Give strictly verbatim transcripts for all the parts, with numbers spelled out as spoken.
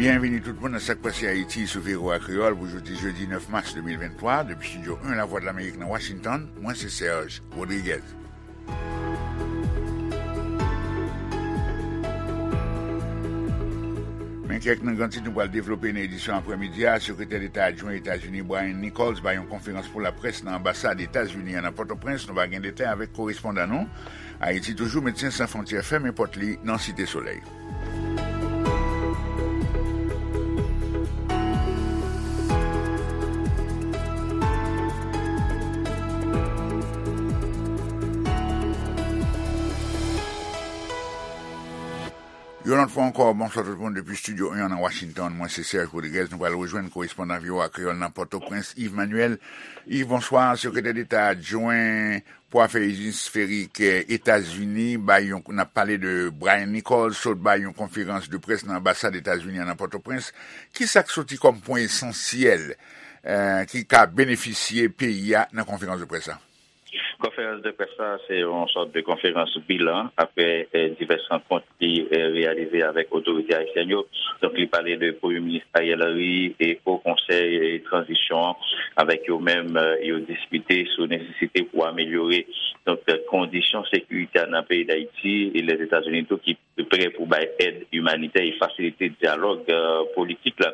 Byenvini tout moun nan Sa k Pase Ayiti sou V O A Kreyòl pou jodi jedi nèf mas de mil venntwa, depi Estidyo en Lavwadlamerik nan Washington, mwen se Serge Rodriguez. Men kèk nan gran tit nou pral devlope nan edisyon aprèmidi a. Sekretè Deta adjwen Etazini Brian Nichols bay yon konferans pou laprès nan anbasad Etazini an nan Pòtoprens. Nou va gen detay avèk korespondan nou. Ayiti toujou, Medsen San Fwontyè fèmen pòt li nan Site Solèy. Yon lòt fwa ankò, bonswa tout moun depi Estidyo en an nan Washington. Mwen se Serge Rodriguez. Nou pral rejwenn korespondan V O A Kreyòl nan Pòtoprens, Yves Manuel. Yves, bonswa. Sekretè Deta adjwen pou afè esferik, eh, Etazini bay yon, n ap pale de Brian Nichols, sot bay yon konferans de près nan anbasad Etazini an nan Pòtoprens. Ki sa k soti kòm pwen esansyèl, eh, ki ka benefisye peyi a nan konferans de près la? Konferans de près la, se yon sòt de konferans bilan apre, eh, divès rankont li, eh, reyalize avèk otorite ayisyèn yo. Donk, li pale de Premye Minis Ariel Henry e Wo Konsèy, eh, Tranzisyon an, avèk yo menm, eh, yo diskite sou nesesite pou amelyore, donk, eh, kondisyon sekirite a nan peyi Dayiti e Lèzetazini tou ki prè pou bay èd imanitè e fasilite dyalòg, eh, politik la.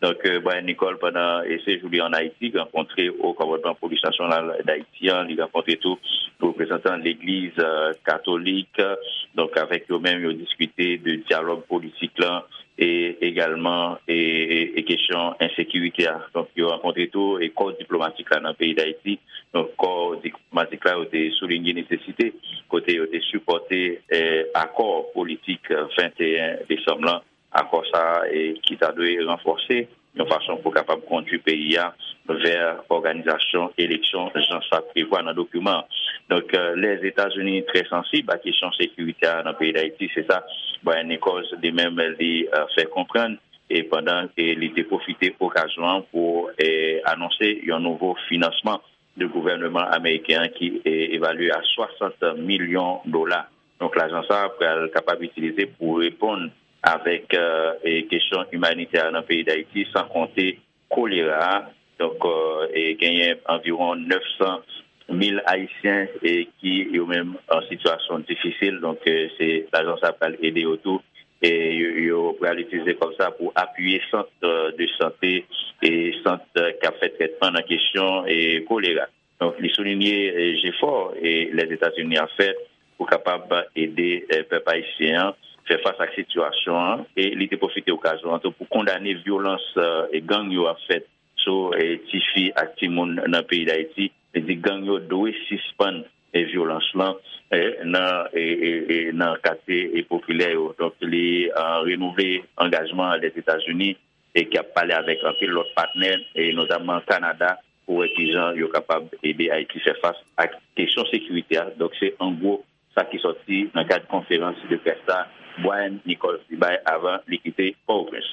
Donk, eh, Brian Nichols, pandan, eh, sejou li ann Ayiti, rankontre Wo Kòmandman Polis Nasyonal Dayiti an, li rankontre tou reprezantan Legliz, eh, Katolik, eh, donk, avèk yo menm, yo diskite de dyalòg politik la, e egalman, e, e, e kesyon ensekirite a. Donk, yo rankontre tou e kò diplomatik la nan peyi Dayiti. Donk, kò diplomatik la, yo te soulinye nesesite kote yo te sipòte, eh, akò politik, eh, venteyen desanm lan, akò sa a, eh, ki ta dwe ranfòse yon fason pou kapab kondui peyi a vè òganizasyon eleksyon jan sa prevwa nan dokiman an. Donk, eh, Lèzetazini trè sansib a kesyon sekirite a nan peyi Dayiti, se sa Brian Nichols li menm li, eh, fè konprann, e pandan, eh, li te pwofite okazyon an pou, eh, anonse yon nouvo finansman de gouvènman ameriken an ki, eh, evalye a swasant milyon dola. Donk, lajan sa a pral kapab itilize pou reponn avèk, eh, eh, kesyon imanitè nan peyi Dayiti, san konte kolera a. Donk, eh, eh, genyen anviwon nèf san mil Ayisyen, eh, ki yo menm an sitiyasyon difisil. Donk, eh, se lajan sa a pral ede yo tou. E yo, yo pral itilize kòb sa pou apiye sant, eh, de sante e sant, eh, k ap fè trètman nan kesyon, eh, kolera. Donk, li soulinye, eh, jefò, eh, Lèzetazini ap fè pou kapab ede, eh, pèp ayisyen an fè fas ak sitiyasyon an, e li te pwofite okazyon an tou pou kondane vyolans, eh, e gang yo ap fè sou, eh, tifi ak timoun nan peyi Dayiti. Li di gang yo dwe sispann, eh, vyolans lan, eh, nan, eh, eh, eh, nan katye, eh, popilè yo. Donk, li, eh, renouvle angajman Lèzetazini e ki ap pale avèk anpil lòt patnè, e notamman Kanada, pou wè kijan yo kapab ede Ayiti fè fas ak kesyon sekirite a. Donk, se an gwo sa ki sòti nan kad konferans de près la Brian Nichols li bay avan li kite Pòtoprens.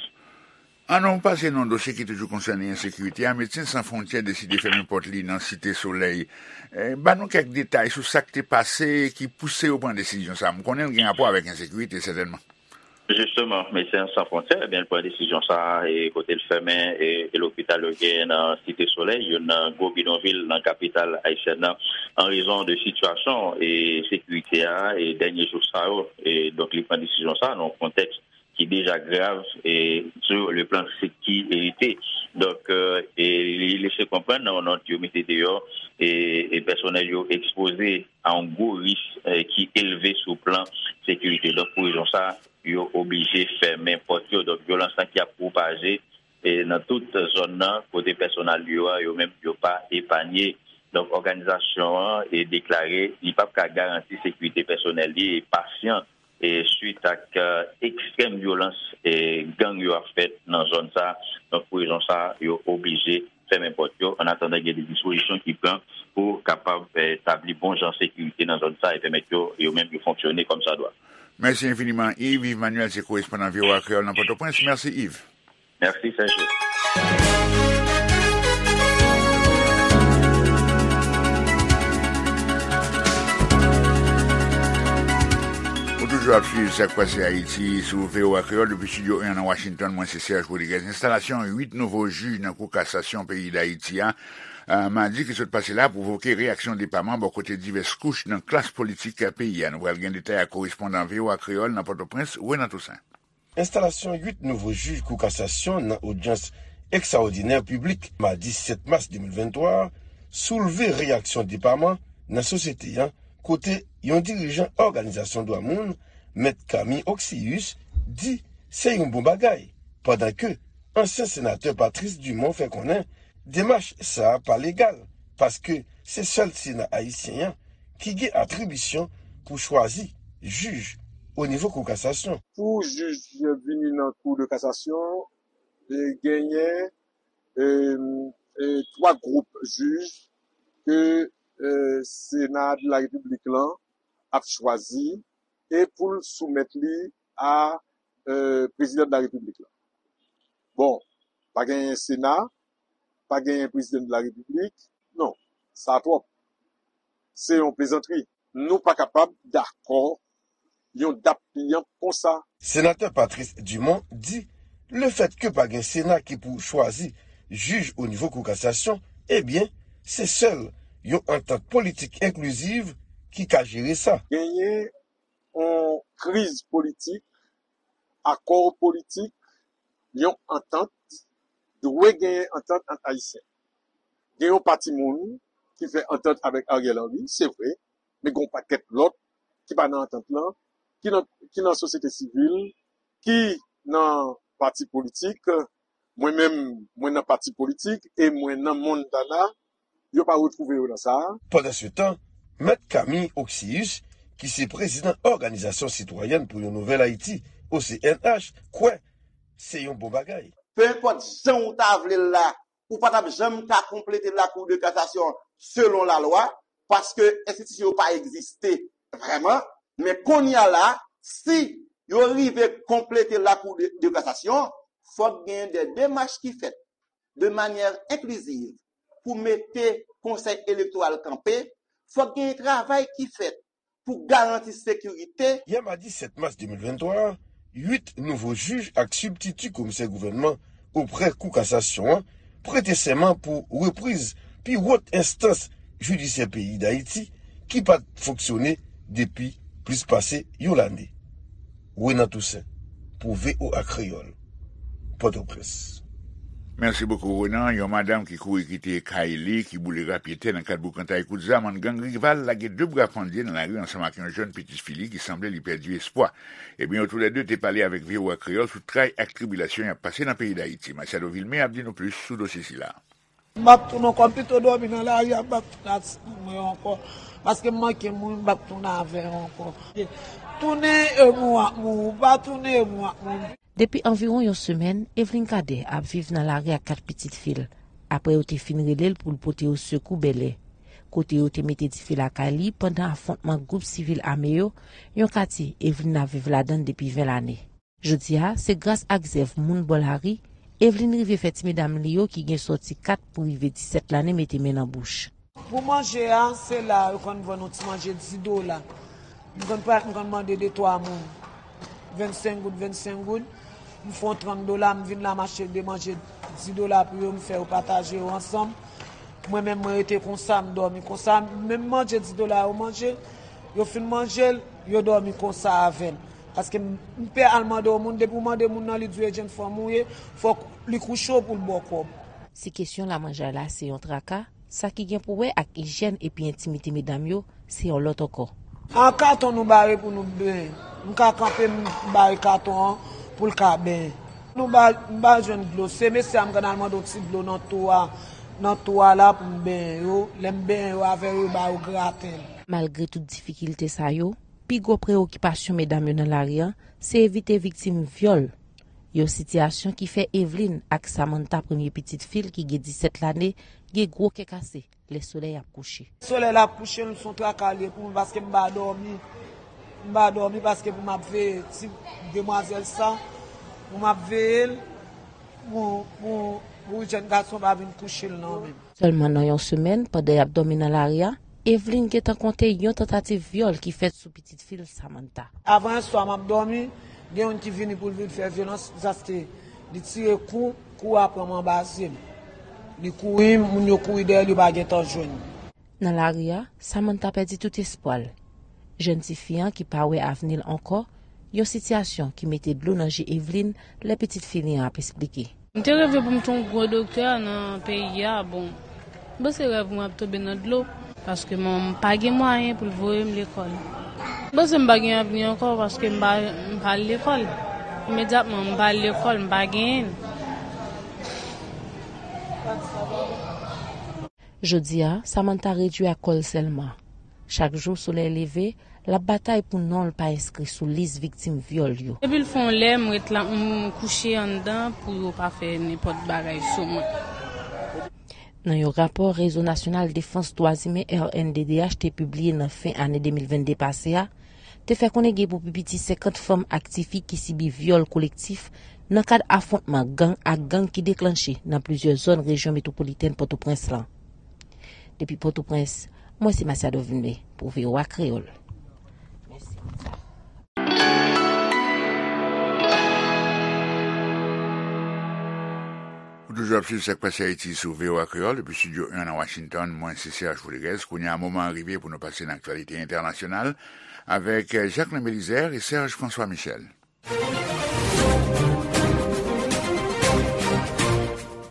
Ann nou pase nan dosye ki toujou konsène ensekirite a. Medsen San Fwontyè deside fèmen pòt li nan Site Solèy. Eh, ban nou kèk detay sou sa k te pase ki pouse yo pran desizyon sa a. M konnen l gen rapò avèk ensekirite, sètènman. Jisteman, Medsen San Fwontyè, ebyen, l pran desizyon sa a, e kote l fèmen, e, e lopital yo genyen nan Site Solèy, youn nan gwo bidonvil nan kapital ayisyèn nan, an rezon de sitiyasyon e sekirite a, e dènye jou sa yo. E donk, li pran desizyon sa a nan yon kontèks ki deja grav, e sou le plan sekirite. Donk, e, e li lese konprann nan yon nòt yo mete deyò, e, e pèsonèl yo ekspoze a yon gwo risk, e, ki elve sou plan sekirite. Donk, pou rezon sa a, yo oblije fèmen pòt yo. Donk, vyolans lan ki ap pwopaje, e, nan tout zòn nan, kote pèsonèl yo a, yo menm, yo pa epanye. Donk, òganizasyon an, e, deklare li p ap ka garanti sekirite pèsonèl li e pasyan, e, swit ak, e, ekstrèm vyolans, e, gang yo ap fè nan zòn sa a. Donk, pou rezon sa a, yo oblije fèmen pòt yo, an atandan gen de dispozisyon ki pran pou kapab, e, tabli bon jan sekirite nan zòn sa a e pèmèt yo, yo menm, yo fonksyone kòmsadwa. Mèsi enfiniman, Yves. Yves Manuel se korespondan V O A Kreyòl nan Pòtoprens. Mèsi, Yves. Mèsi, Serge. Ou toujou W ap swiv Sa k Pase Ayiti sou V O A Kreyòl depi estidyo en nan Washington. Mwen se Serge Rodriguez. Enstalasyon uit nouvo jij nan Kou Kasasyon peyi Dayiti a, a, madi ki sot pase la, pwovoke reyaksyon depaman bò kote divès kouch nan klas politik peyi a. Nou pral gen detay ak korespondan V O A Kreyòl nan Pòtoprens, Renan Toussaint. Enstalasyon uit nouvo jij Kou Kasasyon nan odyans ekstraòdinè piblik madi sèt mas de mil venntwa a soulve reyaksyon depaman nan sosyete an, kote yon dirijan òganizasyon dwa moun, Mèt Camille Oxius, di se yon bon bagay, pandan ke ansyen senatè Patrice Dumont fè konnen demach sa a pa legal, paske se sèl Sena ayisyen an ki gen atribisyon pou chwazi jij o nivo Kou Kasasyon. Pou jij vini nan Kou de Kasasyon, e, genyen, e, e, twa gwoup jij ke, e, Sena de la Repiblik lan ap chwazi e pou l soumèt li a, e, Prezidan de la Repiblik la. Bon, pa genyen Sena, pa genyen Prezidan de la Repiblik. Non, sa twòp. Se yon plezantri. Nou pa kapab dakò yon dap piyanp konsa. Senatè Patrice Dumont di, lefètke pa gen Sena ki pou chwazi jij o nivo Kou Kasasyon, ebyen, se sèl yon antant politik enkliziv ki ka jere sa. Genyen yon kriz politik, akò politik, yon antant, dwe genyen antant ant Ayisyen. Gen yon pati moun ki fè antant avèk Ariel Henry, se vre, men gen yon pakèt lòt ki pa nan antant lan, ki nan, ki nan sosyete sivil, ki nan pati politik. Mwen menm, mwen nan pati politik e mwen nan Montana, yo pa retwouve yo nan sa a. Pandansetan, Mèt Camille Oxius, ki se prezidan Òganizasyon Sitwayèn pou yon Nouvèl Ayiti, O C N H, kwè se yon bon bagay. Penenpòt jan w ta vle l la, ou pa t ap janm ka konplete Lakou de Kasasyon selon lalwa, paske enstitisyon yo pa egziste vrèman. Men kounye a la, si yo rive konplete Lakou de, de Kasasyon, fòk genyen de demach ki fèt de manyè enkliziv pou mete Konsèy Elektoral kanpe, fòk genyen travay ki fèt pou garanti sekirite. Yè madi sèt mas de mil venntwa a, uit nouvo jij ak sibtiti komisè gouvènman oprè Kou Kasasyon an prete sèman pou repriz pi wòt enstans jidisyè peyi Dayiti ki pa t fonksyone depi plis pase yon lane. Renan Toussaint, pou V O A Kreyòl, Pòtoprens. Mèsi bokou, Renan. Yon madanm ki kouri kite kay li, ki boule rapyetè nan kad boukantay kout zam ant gang rival, lage de bra pandye nan lari ansanm ak yon jèn pitit fi li ki sanble li pèdi espwa. Ebyen, yo toulède te pale avèk V O A Kreyòl sou tray ak tribilasyon y ap pase nan peyi Dayiti. Machado Vilmé ap di nou plis sou dosye sila. M p ap tounen ankò, m pito dòmi nan lari a, m p ap tounen ak sèl mwen ankò. Paske m manke mouri, m p ap tounen avè yo ankò. Tounen e mouri ak mouri, pa tounen e mouri ak mouri. Depi anviwon yon semèn, Eveline Cadet ap viv nan lari ak kat pitit fi l, apre yo te fin rele l pou l pote yo sekou Bèlè, kote yo te mete dife lakay li pandan afwontman gwoup sivil ame yo, yon katye Eveline ap viv ladan l depi ven lane. Jodi a, se gras ak zèv moun bò lari, Eveline rive fè ti medam li yo ki gen sòti kat pou rive disèt lane mete men nan bouch. Pou manje a, se la yo konn vann yon ti manje dis dola. M konn pa, m konn mande de twa moun vennsenk goud, vennsenk goud. M fè yon trant dola, m vin la, m achte de manje dis dola pou yo, m fè yo pataje yo ansanm. Mwen menm, mwen rete konsa, m dòmi konsa. Menm manje dis dola yo manje, yo fin manje l, yo dòmi konsa avè l. Paske m, m pè al mande yon moun, depi w mande moun nan, li di w e jenn fanm ou ye, fòk li kouche w pou l ba w kòb. Si kesyon lamanjay la se yon traka, sa ki gen pou wè ak ijyèn epi entimite medam yo, se yon lòt ankò. A katon nou bare pou nou benyen. M ka kanpe, m bare katon an pou l ka benyen. Nou ba, m ba jwenn dlo. Se mesye a m konn al mande yon ti dlo nan tou a, nan tou a la pou m benyen yo. Lè m benyen yo avè yo, yo ba yo graten. Malgre tout difikilte sa yo, pi gwo preyokipasyon medam yo nan lari a, se evite viktim vyòl. Yon sitiyasyon ki fè Eveline ak Samantha, premye pitit fi l ki gen disèt lane, gen gwo kè kase lè solèy ap kouche. Solèy la ap kouche, se yon traka li ye pou mwen, paske m pa dòmi. M pa dòmi paske pou m ap veye ti demwazèl sa, pou m ap veye l, pou, pou, pou jèn gason pa vin kouche l nan men m. Sèlman nan yon semèn, pandan y ap dòmi nan lari a, Evelyn gentan konte yon tantativ vyòl ki fèt sou pitit fi l, Samantha. Avan yè swa, m ap dòmi, gen youn ki vini pou l vin fè vyolans, zaste li tire kou, kou a pran m anba zye m. Li kouri, moun yo kouri dèyè l, yo pa gentan jwenn li. Nan lari a, Samantha pèdi tout espwa l. Jèn tifi an ki pa wè avni l ankò, yon sitiyasyon ki mete dlo nan je Evelyn lè pitit fi li an ap esplike. M te reve pou m te yon gwo doktè nan peyi a. Bon, m panse rèv mwen ap tonbe nan dlo, paske m pa gen mwayen pou l voye m lekòl. M panse m pa gen avni ankò, paske m pa, m pa al lekòl. Imedyatman, m pa al lekòl, m pa genyen l. Jodi a, Samantha redui ak kò l sèlman. Chak jou solèy leve, l ap batay pou non l pa enskri sou lis viktim vyòl yo. Depi l fè yon lè, m ret la, m kouche anndan pou yo pa fè nenpòt bagay sou mwen. Nan yon rapò Rezo Nasyonal Defans Dwa Imen, R N D D H, te pibliye nan fen ane de mil vennde pase a, te fè konnen gen pou pi piti senkant fanm ak tifi ki sibi vyòl kolektif nan kad afwontman gang ak gang ki deklanche nan plizyè zòn rejyon metwopolitèn Pòtoprens lan. Depi Pòtoprens, mwen se Masiado Vilmé pou V O A Kreyòl. Ou toujou ap swiv Sak Pase Ayiti sou V O A Kreyòl depi Estidyo en nan Washington. Mwen se Serge Rodriguez. Kounye a, moman an rive pou nou pase nan aktyalite entènasyonal avèk Jacquelin Belizaire e Serge François Michel.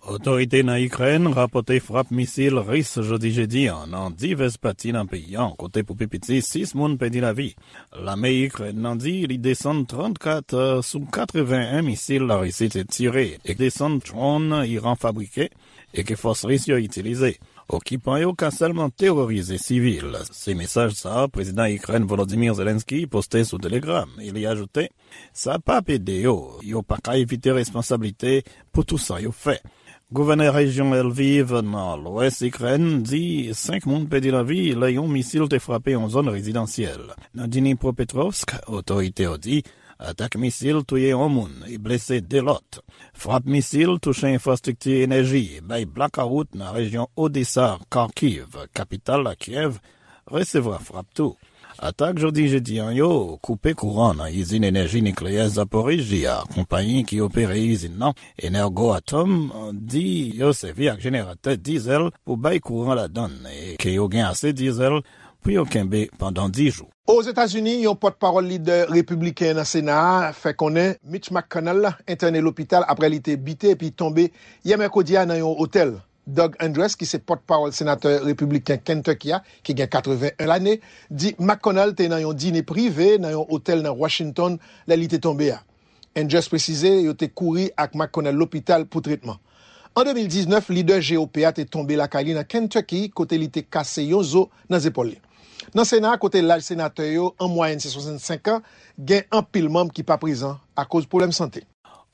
Otorite nan Ikrèn rapòte frap misil ris jodi jedi an nan divès pati nan peyi an, kote pou pi piti sis moun pèdi lavi. Lame Ikrèn nan di li desann trannkat sou katreven en misil Larisi te tire e desann dwòn Iran fabrike e ke fòs ris yo itilize. Okipan yo ka sèlman terorize sivil. Se mesaj sa a Prezidan Ikrèn Volodymyr Zelensky poste sou Telegram e li ajoute, sa p ap ede yo, yo pa ka evite responsablite pou tou sa yo fè. Gouvènè rejyon Lviv nan lwès Ikrèn di senk moun pèdi lavi lè yon misil te frape yon zòn rezidansyèl. Nan Dnipropetrovsk, otorite yo di atak misil touye yon moun e blese de lòt. Frap misil touche enfrastrikti enèji e bay blakawout nan rejyon Odesa, Kharkiv, kapital la Kiev, resevwa frap tou. Atak jodi jedi an yo koupe kouran nan izin enèji nikleyè Zaporizhzhia. Konpayi ki opere izin nan, Energoatom, di yo sèvi ak jeneratè dizèl pou bay kouran ladan l e ke yo gen ase dizèl pou yo kenbe pandan dis jou. Ozetazini, yon pòtpawòl lidè repibliken nan Sena a fè konnen Mitch McConnell entène lopital apre li te bite epi tonbe yè mèkredi a nan yon otèl. Doug Andress, ki se pòtpawòl senatè repibliken Kentucky a, ki gen katreven en lane, di McConnell te nan yon dine prive nan yon otèl nan Washington lè li te tonbe a. Andress presize yo te kouri ak McConnell lopital pou tretman. An de mil diznèf, lidè G O P a te tonbe lakay li nan Kentucky, kote li te kase yon zo nan zepòl li. Nan Sena a, kote laj senatè yo an mwayèn se swasannsenk an, gen anpil manm ki pa prezan akoz pwoblèm sante.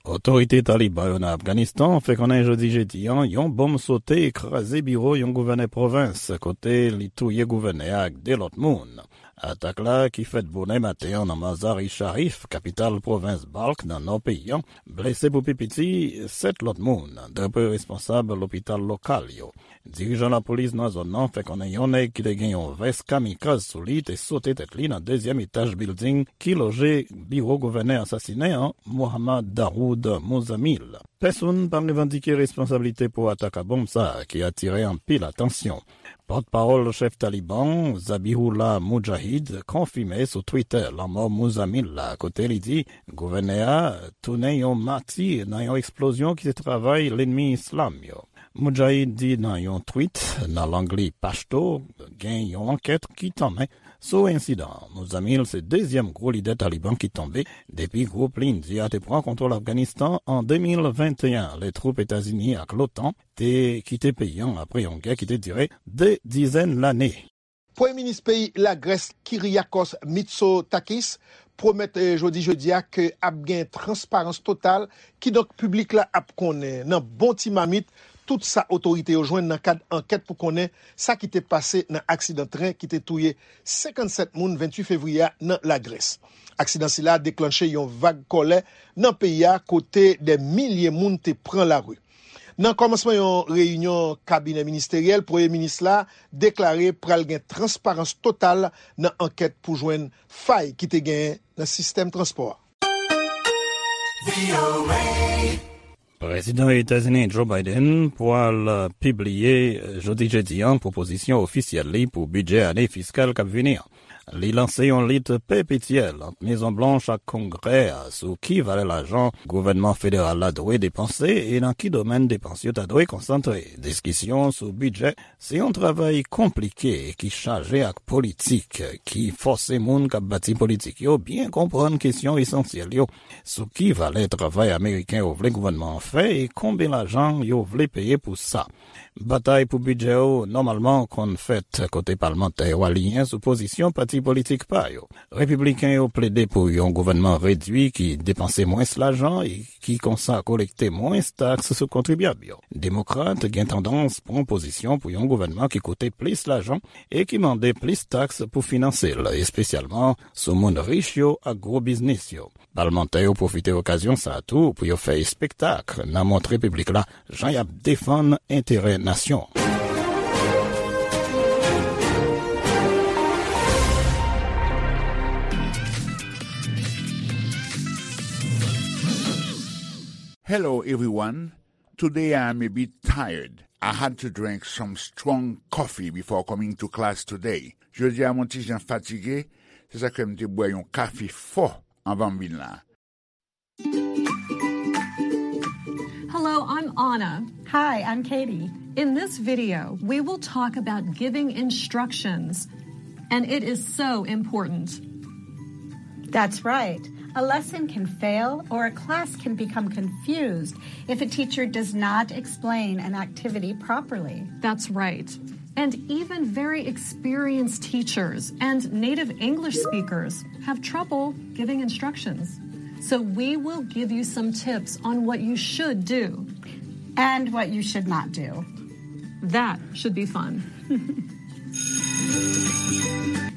Otorite Taliban yo nan Afganistan fè konnen jodi jedi an, yon bonm sote e kraze biwo yon gouvènè pwovens, kote li touye gouvènè a ak de lòt moun. Atak la, ki fèt bonè maten an nan Mazar-i Sharif, kapital pwovens Balkh nan nò peyi an, blese pou pi piti sèt lòt moun, dapre responsab lopital lokal yo. Dirijan lapolis nan zòn nan fè konnen yon nèg ki te gen yon vès kamikaz sou li te sote tèt li nan dezyèm etaj bilding ki loje biwo gouvènè asasinen an, Mohammad Dawood Muzamil. Pèsonn pa revandike responsablite pou atak a bonm sa a ki atire anpil atansyon. Pòtpawòl chèf Taliban, Zabihullah Mujahid, konfime sou Twitter lanmò Muzamil la, kote li di gouvènè a tounen yon mati nan yon eksplozyon ki se travay lènmi islam yo. Mujahid di nan yon tweet nan lang li Pashto, gen yon ankèt ki tanmen sou ensidan an. Muzamil se dezyèm gwo lidè Taliban ki tonbe depi gwoup Lindi a te pran kontwòl Afganistan an de mil venteyen, lè twoup Etazini ak l'OTAN te kite peyi an apre yon gè ki te dire de dizèn lane. Premye minis peyi Lagrès, Kyriakos Mitsotakis, pwomèt, eh, jodi jedi a ke ap gen transparans total, kidonk piblik la ap konnen nan bon ti mamit tout sa otorite yo jwenn nan kad ankèt pou konnen sa ki te pase nan aksidan tren ki te touye senkannsèt moun venntuit fevriye a nan Lagrès. Aksidan sila deklanche yon vag kòlè nan peyi a, kote dè milye moun te pran lari. Nan kòmansman yon reyinyon kabinè ministeryèl, premye minis la deklare pral gen transparans total nan ankèt pou jwenn fay ki te genyen nan sistèm transpò a. Prezidan Etazini Joe Biden pral pibliye jodi jedi a pwopozisyon ofisyèl li pou bidjè ane fiskal k ap vini an. Li lanse yon lit pepetyèl ant Mezon Blanch ak Kongrè a sou ki valè lajan gouvènman federal la dwe depanse e nan ki domèn depans yo ta dwe konsantre. Diskisyon sou bidjè se yon travay konplike ki chaje ak politik, ki fòse moun k ap bati politik yo byen konprann kesyon esansyèl yo sou ki valè travay ameriken yo vle gouvènman an fè e konbyen lajan yo vle peye pou sa. Batay pou bidjè yo nòmalman konn fèt kote palmantè yo aliyen sou pozisyon pati politik pa yo. Repibliken yo plede pou yon gouvènman redui ki depanse mwens lajan e ki konsa kolekte mwens taks sou kontribyab yo. Demokrat gen tandans pran pozisyon pou yon gouvènman ki koute plis lajan e ki mande plis taks pou finanse l, espesyalman sou moun rich yo ak gwo biznis yo. Palmantè yo pwofite okazyon sa a tou pou yo fè espektak nan montre piblik la jan y ap defann enterè nasyon an. Hello, everyone. Today I am a bit tired. I had to drink some strong coffee before coming to class today. Jodi a m on ti jan fatige, se sa k fè m te bwè yon kafe fò anvan m vin la. Hello, I'm Anna. Hi, I'm Katie. In this video, we will talk about giving instructions, and it is so important. That's right. A lesson can fail or a class can become confused if a teacher does not explain an activity properly. That's right. And even very experienced teachers and native English speakers have trouble giving instructions. So we will give you some tips on what you should do. And what you should not do. That should be fun.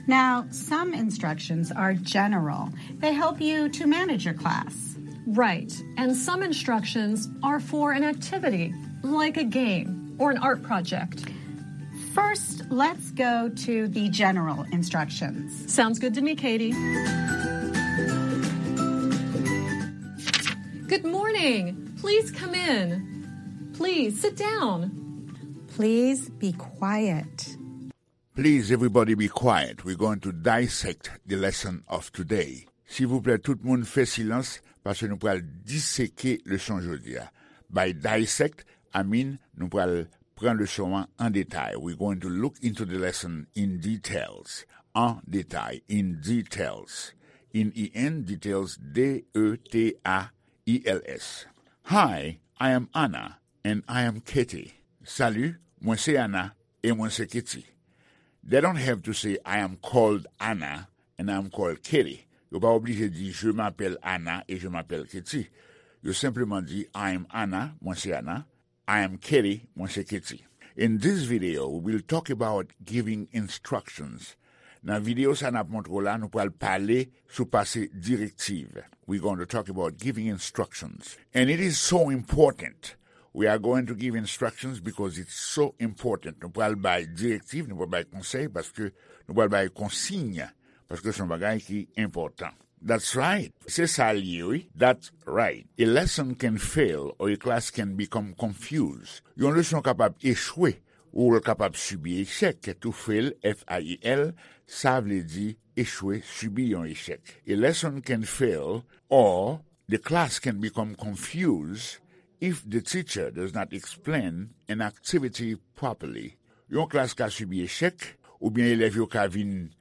Now, some instructions are general. They help you to manage your class. Right. And some instructions are for an activity, like a game or an art project. First, let's go to the general instructions. Sounds good to me, Katie. Good morning. Please come in. Please sit down. Please be quiet. Please, everybody be quiet. We're going to dissect the lesson of today. Silvouplè, tout moun fè silans, paske nou pral diseke leson jodi a. By dissect, I mean, nou pral pran leson an an detay. We're going to look into the lesson in details. An detay, in details. In E N, details, D E T A I L S. Hi, I am Anna, and I am Katie. Salut, mwen se Anna, e mwen se Katie. They don't have to say I am called Anna and I am called Katie. Yo pa oblije di je m'appelle Anna et je m'appelle Katie. Yo senpleman di I am Anna, mwen se Anna, I am Katie, mwen se Katie. In this video, we will talk about giving instructions. Nan videyo sa n ap montre w la, nou pral pale sou pase direktiv. We're going to talk about giving instructions. And it is so important. We are going to give instructions because it's so important. Nou pral bay direktiv, nou pral bay konsèy, paske nou pral bay konsiy, paske se yon bagay ki enpòtan. That's right. Se sa l ye, wi. That's right. A lesson can fail or a class can become confused. Yon leson kapab echwe, ou l kapab sibi echèk. To fail, F A I L, sa vle di echwe, sibi yon echèk. A lesson can fail or the class can become confused if the teacher does not explain an activity properly. Yon klas ka sibi echèk, oubyen elèv yo ka vin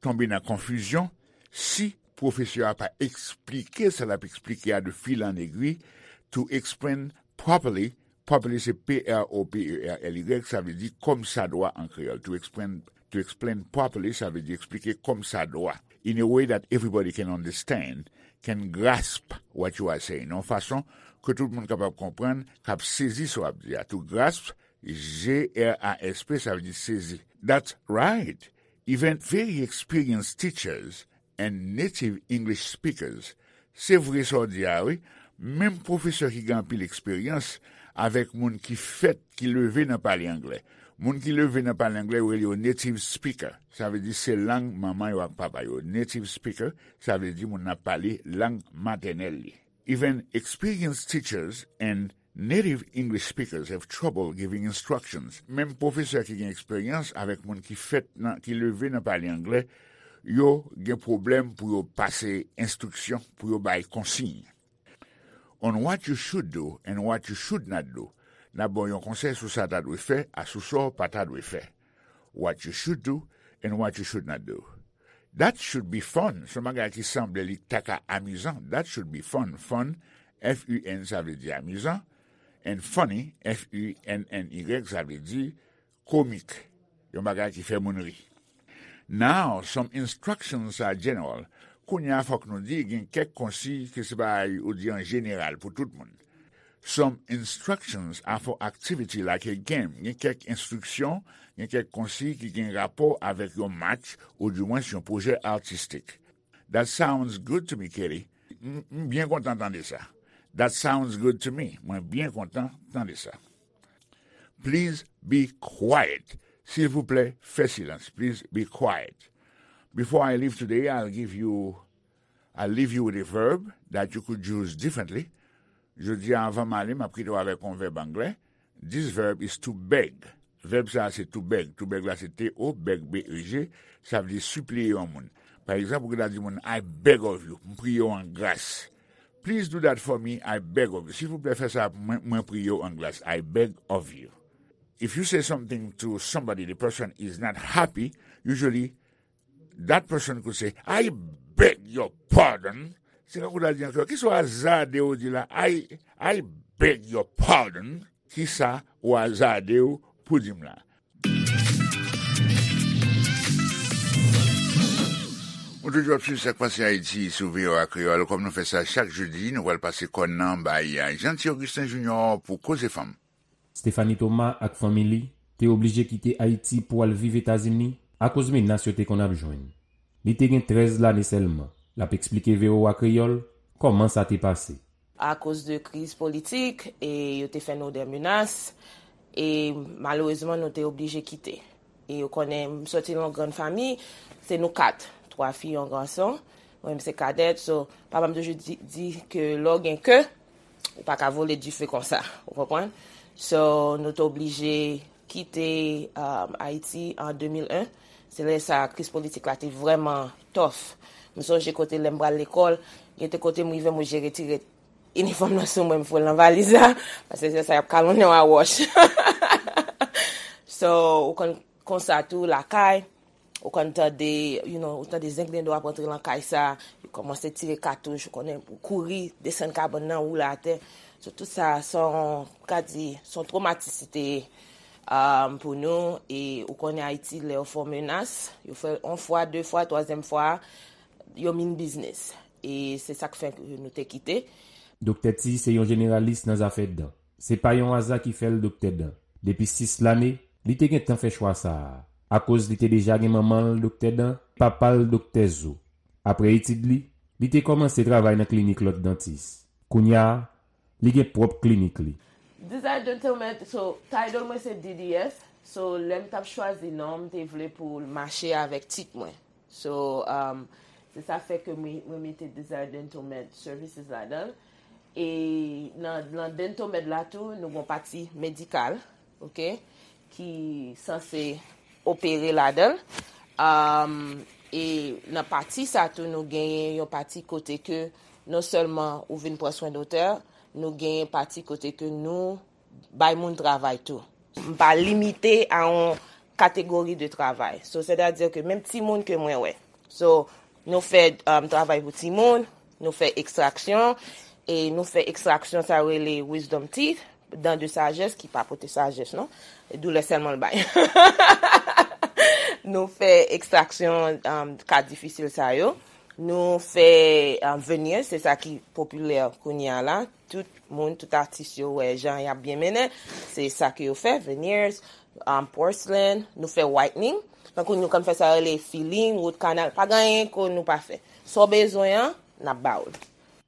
tonbe nan konfizyon si pwofesè a pa eksplike sa l ap eksplike a de fil an egwi, to explain properly. Properly se P R O P E R L Y, sa vle di kòmsadwa an kreyòl. To explain, to explain properly, sa vle di eksplike kòmsadwa. In a way that everybody can understand, can grasp what you are saying. Nan yon fason ke tout moun kapab konprann, k ap sezi sa w ap di a. To grasp, G R A S P, sa vle di sezi. That's right. Even very experienced teachers and native English speakers. Se vre sa w di a, wi. Menm pwofesè ki gen anpil eksperyans avèk moun ki fèt, ki leve nan pale anglè. Moun ki leve nan pale anglè, yo rele yo native speaker. Sa vle di se lang manman yo ak papa yo. Native speaker, sa vle di moun nan ap pale lang matènèl li. Even experienced teachers and native English speakers have trouble giving instructions. Menm pwofesè ki gen eksperyans avèk moun ki fèt nan, ki leve nan pale anglè, yo gen pwoblèm pou yo pase enstriksyon, pou yo bay konsiy. On what you should do and what you should not do. N ap ba w yon konsèy sou sa w ta dwe fè, a sou sa w pa ta dwe fè. What you should do and what you should not do. That should be fun. Se yon bagay ki sanble li ta ka amizan. That should be fun. Fun, F U N, sa vle di amizan. And funny, F U N N Y, sa vle di komik. Yon bagay ki fè moun ri. Now, some instructions are general. Kounye a, fòk nou di gen kèk konsiy ke se bagay ou di an jeneral pou tout moun. Some instructions are for activity like a game. Gen kèk enstriksyon, gen kèk konsiy ki gen rapò avèk yon match, oudimwens yon pwojè atistik. That sounds good to me, Kitty. M, m byen kontan tande sa. That sounds good to me. Mwen byen kontan tande sa. Please be quiet. Silvouplè, fè silans. Please be quiet. Before I leave today, I'll give you, I'll leave you with a verb that you could use differently. Jodi a, anvan m ale, m ap kite w avèk yon vèb anglè. This verb is to beg. Vèb sa a se to beg. To beg la se T O, beg, B E G. Sa vle di sipliye yon moun. Pa egzanp, ou gen dwa di moun, "I beg of you." M priye w an gras. "Please do that for me, I beg of you." Silvouplè, fè sa pou mwen, mwen priye w an gras. "I beg of you." If you say something to somebody, the person is not happy, usually that person could say, "I beg your pardon." Se kankou w ta di ankò, "Kisa w azade w di la? I, I beg your pardon." Kisa w azade w pou di m la? Ou toujou ap swiv Sa k Pase Ayiti sou V O A Kreyòl. Kòm nou fè sa chak jedi, nou pral pase kòn nan bay Jeanty Augustin Junior pou Koze Fanm. Stephanie Thomas ak fanmi li te oblije kite Ayiti pou al viv Etazini akoz menas yo te konn ap jwenn. Li te gen trèz lane sèlman. L ap eksplike V O A Kreyòl kòman sa te pase. Akoz de kriz politik, e yo te fè nou de menas, e malerezman, nou te oblije kite. E ou konnen, m soti nan yon grann fanmi, se nou kat, twa fi, yon gason. Mwen menm se kadèt, so, papa m toujou di, di ke lè w gen ke, ou pa ka vole dife konsa, ou konprann? So, nou te oblije kite, um, Ayiti an de mil en. Se lè sa, kriz politik la te vrèman tough. M sonje kote lè m pral lekòl, gen te kote m rive, m oblije retire inifòm nan sou mwen, m foure l nan valiz la, paske se sa y ap kalonnen w a wòch. So, ou konn konsa tou, lakay, ou konn tande, you know, ou tande zenglendo ap rantre nan kay sa, yo kòmanse tire katouch, ou konnen, ou kouri, desann kabann nan, woule atè. So, tout sa, se yon, ka di, se yon twomatis li te ye, um, pou nou, e ou konnen Ayiti, lè yo fè w menas, yo fè l yon fwa, de fwa, twazyèm fwa, yo mean business. E se sa k fè ke nou te kite. Doktè T se yon jeneralis nan zafè dan. Se pa yon aza ki fè l doktè dan. Depi sis lane, li te gentan fè chwa sa a. Akoz li te deja gen manman l doktè dan, papa l doktè zo. Apre etid li, li te kòmanse travay nan klinik lòt dantis. Kounye a, li gen pwòp klinik li. Desire Dental Med, so, title mwen se D D S. So, lè m t ap chwazi non, m te vle pou l mache avèk tit mwen. So, um, se sa fè ke mwen, mwen mete Desire Dental Med Services ladan l. E nan, nan Dental Med la tou, nou gen yon pati medikal, oke, ki sanse opere ladan l. Um, e nan pati sa tou, nou genyen yon pati kote ke non sèlman ou vin pran swen dantè, nou genyen pati kote ke nou bay moun travay tou. M pa limite a yon kategori de travay. So, sètadi ke menm timoun ke mwen wè. So, nou fè, um, travay pou timoun, nou fè ekstraksyon, e nou fè ekstraksyon sa yo rele wisdom teeth, dan de sajès ki pa pote sajès, non. Doulè sèlman l bay. Nou fè ekstraksyon, um, ka difisil sa yo. Nou fè, um, veneers, se sa ki popilè kounye a la. Tout moun, tout atis yo wè jan y ap byen mennen. Se sa ke yo fè, veneers, um, porcelain, nou fè whitening. Tankou nou konn fè sa rele filling, root canal. Pa gen anyen ke nou pa fè. Sa w bezwen an, n ap ba w l.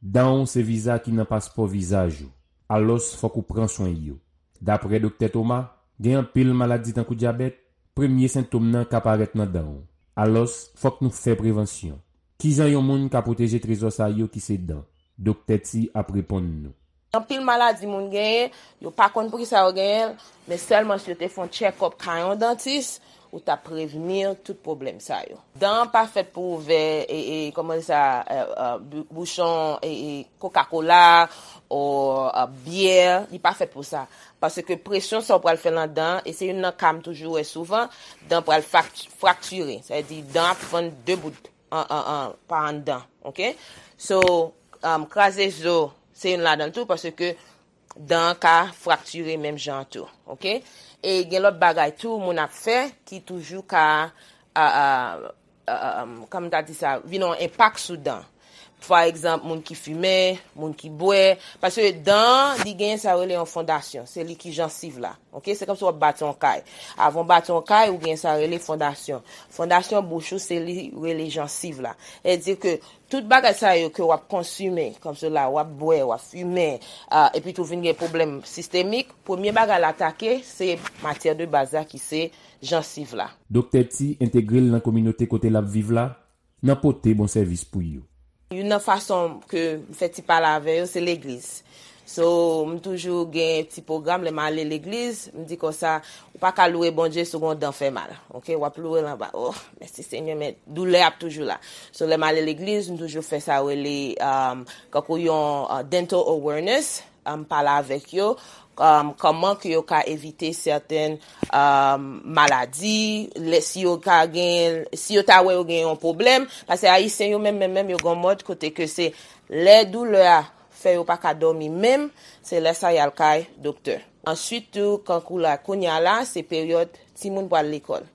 Dan w se viza ki nan paspò vizaj ou. alòs fòk ou pran swen yo. Daprè Doktè Thomas, gen anpil maladi tankou dyabèt, premye sentòm nan ka parèt nan dan w. Alòs, fòk nou fè prevansyon. Kijan yon moun ka pwoteje trezò sa yo ki se dan? Doktè T ap reponn nou. Anpil maladi moun genyen, yo pa konn poukisa yo genyen l, men sèlman si yo te fè yon tchèkòp kay yon dantis, ou t ap prevni tout pwoblèm sa yo. Dan an pa fèt pou ouvè, e, e, kòman sa, e, e, bou-, bouchon, e, e, Coca-Cola, ou, e, byè, li pa fèt pou sa. Paske presyon sa w pral fè nan dan an, e se youn nan ka m toujou wè souvan, dan pral frak-, fraktire. Sa vle di dan ap fann de bout an, an, an, pa anndan, oke? So, um, kraze zo, se youn ladan l tou, paske dan an ka fraktire menm jan an tou, oke? E gen lòt bagay tou, moun ap fè, ki toujou ka, a, a, a, a, kòman m ta di sa, vin yon enpak sou dan. Pa egzanp, moun ki fimen, moun ki bwè, paske dan an, li genyen sa yo rele yon fondasyon, se li ki jansiv la, oke? Se kòmsi w ap bati yon kay. Avan w bati yon kay, ou genyen sa yo rele fondasyon. Fondasyon bouch ou, se li rele jansiv la. Sètadi ke tout bagay sa yo ke w ap konsime, kòmsi la, w ap bwè, w ap fimen, a, epi tou vin gen pwoblèm sistemik, premye bagay l atake, se matyè de baz la ki se jansiv la. Doktè T entegre l nan kominote kote l ap viv la, nan pote bon sèvis pou yo. Youn nan fason ke m fè ti pale avè yo, se legliz. So, m toujou gen ti pwogram, lè m ale legliz, m di konsa, ou pa ka loure Bondye si w gen yon dan fè mal. Oke, w ap loure l anba. Oh, mèsi Senyè, men doulè ap toujou la. So, lè m ale legliz, m toujou fè sa yo rele, um, kankou yon, uh, dental awareness, um, pale avèk yo, um, kòman ke yo ka evite sèten, um, maladi, lè, si yo ka gen, si yo ta wè yo gen yon pwoblèm, paske Ayisyen yo menm, menm, menm, yo gen yon mòd kote ke se lè doulè a fè yo pa ka dòmi menm, se lè sa y al kay doktè. Answit tou, kankou la, kounye a la, se peryòd timoun pral lekòl.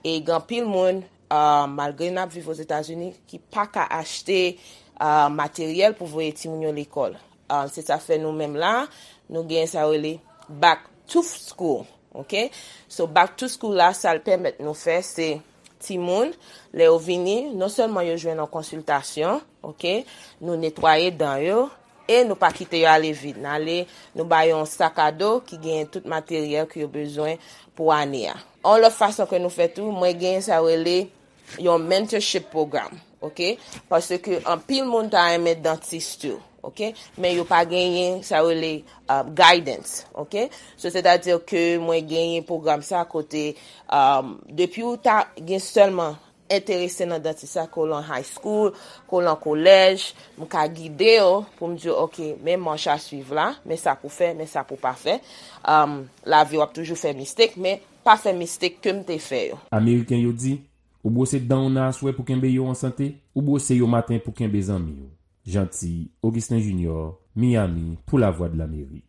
E gen anpil moun, ah, malgre n ap viv Ozetazini, ki pa ka achte, ah, materyèl pou voye timoun yo lekòl. Ah, se sa fè nou menm la, nou gen sa yo rele back to school, oke? So, back to school la, sa l pèmèt nou fè, se timoun, lè yo vini, non sèlman yo jwenn yon konsiltasyon, oke? Nou netwaye dan yo, e nou pa kite yo ale vid. N ale, nou ba yo yon sak a do ki genyen tout materyèl ke yo bezwen pou ane a. Yon lòt fason ke nou fè tou, mwen genyen sa yo rele yon mentorship program, oke? Paske anpil moun ta renmen dantis tou, oke? Men yo pa genyen sa yo rele, uh, guidance, oke? So, sètadi ke mwen genyen pwogram sa kote, um, depi ou ta gen sèlman enterese nan dantis sa, ke w lan high school, ke w lan kolèj, m ka gide yo pou m di yo, oke, men mach a swiv la, men sa pou fè, men sa pou pa fè. Um, lavi w ap toujou fè mistake, men pa fè mistake ke m te fè yo. Ameriken yo di, ou bwose dan w nan aswè pou kenbe yo an sante, ou bwose yo maten pou kenbe zanmi w. Jeanty Augustin Junior, Miami, pou Lavwadlamerik.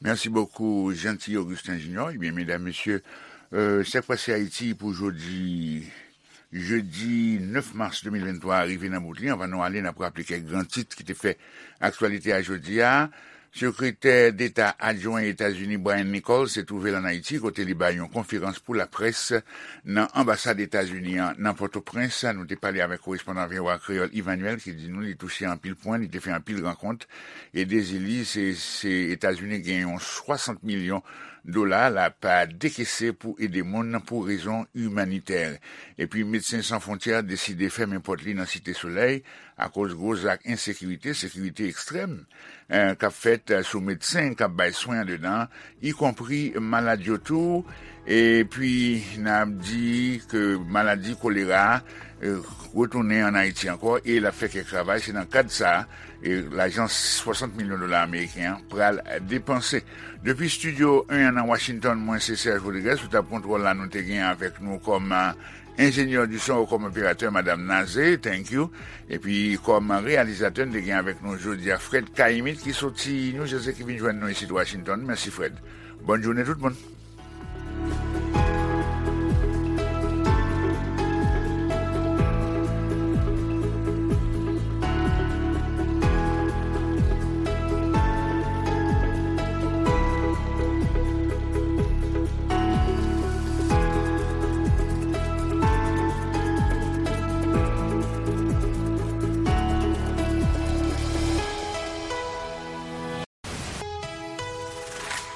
Merci beaucoup, Jeanty Augustin Junior. Ebyen, medam, mesye, euh, sa k pase Ayiti pou jodi, jedi nèf mas de mil venntwa a rive nan bout li. Anvan nou ale, n ap raple kèk gran tit ki te fè aktyalite a jodi a. Sekretè Deta adjwen Etazini Brian Nichols te twouve l ann Ayiti, kote li bay yon konferans pou laprès nan anbasad Etazini an nan Pòtoprens. Nou te pale avèk korespondan V O A Kreyòl Emmanuel ki di nou li touche anpil pwen, li te fè anpil rankont. E dezi li, se, se Etazini gen yon swasant milyon dola l ap dekese pou ede moun pou rezon imanitè. Epi Medsen San Fwontyè deside fèmen pòt li nan Site Solèy akoz gwo zak ensekirite, sekirite ekstrèm, eh, k ap fèt, eh, sou medsen k ap bay swen andedan, ikonpri malad yo tou. Epi, n ap di ke maladi kolera a, eh, retounen ann Ayiti ankò e l ap fè kèk ravaj. Se nan kad sa a, eh, lajan swasant milyon dola ameriken an pral depanse. Depi Estidyo en an nan Washington, mwen se Serge Rodriguez, sou tab kontwòl la, nou te gen avèk nou kòm, eh, enjenyè di son, kòm operatè, Madam Naze, thank you. Epi kòm reyalizatè, n te gen avèk nou jodi a Fred Caïmite ki soti New Jersey ki vin jwenn nou isit Washington. Mèsi, Fred. Bòn jounen tout moun.